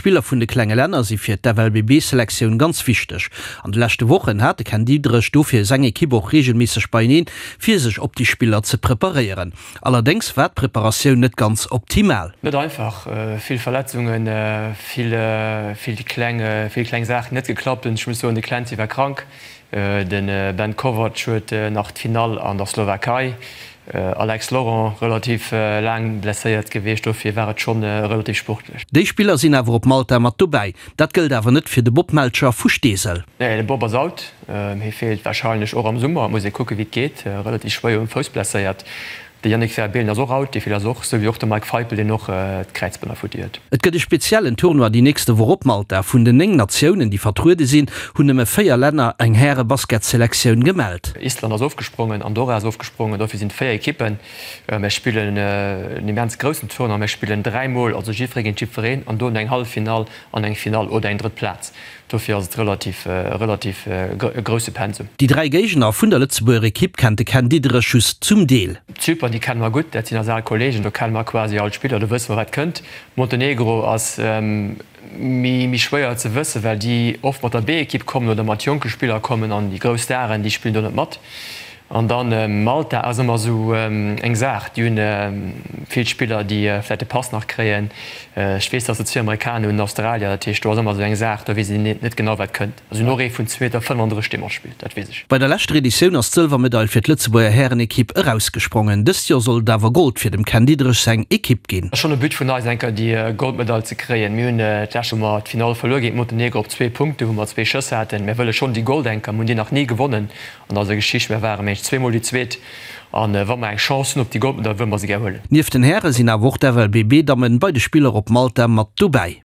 Spiller vun de klenge Länner si fir d'FLBB-Selektioun ganz wichteg. An de leschte Wochen hat de Ken Diederich dofir seng Ekipp och reegelméisseg beieneen, fir sech op déi Spiller ze preparéieren. Allerdéngs war d'Preparatioun net ganz optimal. Net einfach, vill Verletzungen, vill vill kleng vill kleng Saachen net geklappt hunn. Ech muss soen, de Clancy war krank, de Ben Kovac huet nach d'Finall an der Slowakei, Alex Laurent relativ laang blesséiert gewiescht, dofir war et schonn relativ sportlech. Déi Spiller sinn awer op Malta mat dobäi. Dat gëllt awer net fir de Bob Melcher vu Steesel. Nee, de Bob ass out. Hie feelt warscheinlech och am Summer. Et muss ee kucke wéi et geet. Relativ schwéier um Fouss blesséiert. De Yannick Verbeelen ass och out, dee feelt also och, esou wéi och de Mike Feipel, deen och d'Kräizbänner futti huet. Et gëtt e speziellen Tournoi déi nächste Woch op Malta. Vun den 9 Natiounen, déi vertruede sinn, hunn nëmme 4 Länner eng Häre-Basketselektioun gemellt. Island ass ofgesprongen, Andorra ass ofgesprongen, dofir sinn et 4 Ekippen. Mir spillen en immens groussen Tournoi, mir spillen 3 mol, also jiddweree géint jiddwereen an dono eng Halleffinall an eng Finall oder eng drëtt Plaz. Dofir ass et relativ, relativ e grousse Pensum. Déi 3 Géigner vun der Lëtzebuerger Ekipp kennt de Ken Diederich just zum Deel. Zypern, déi kenne mer gutt, dat sinn eis al Kolleegen, do kenne mer quasi all d'Spiller, do wësse mer wat kënnt. Montenegro ass méi méi schwéier ze wëssen, well déi oft mat der B-Ekipp kommen oder mat jonke Spiller kommen an déi grouss Staren, déi spillen do net mat. An dann Malta ass ëmmer esou eng Saach. Déi hunn vill Spiller, déi vläicht de Pass nach kréien. Ech weess, datt se zwee Amerikaner hunn, en Australier. Dat heescht, do ass ëmmer esou eng Saach, do weess een net genau, wat kënnt. Si hunn och ee vun 2 Meter 35, dee matspillt, dat weess ech. Bei der leschter Editioun ass d'Sëlwermedail fir d'Lëtzebuerger Härenekipp erausgesprongen. Dëst Joer soll et awer Gold fir dem Ken Diederich seng Ekipp ginn. Ass schonn e But vun eis, eng Kéier déi Goldmedail ze kréien. Mir hunn d'lescht wou mer d'Finall verluer géint Montenegro op zwee Punkte, wou mer zwee Schëss haten. Mir wëlle schonn déi Gold eng Kéier. Mir hunn déi nach ni gewonnen. An eiser Geschicht, mir waren mengen ech zweemol déi Zweet an wa mer eng Chance hunn op déi Goldmedail, wëlle mer se gär huelen. Nieft den Häre sinn awer och d'FLBB-Dammen bei de Spiller op Malta mat dobäi.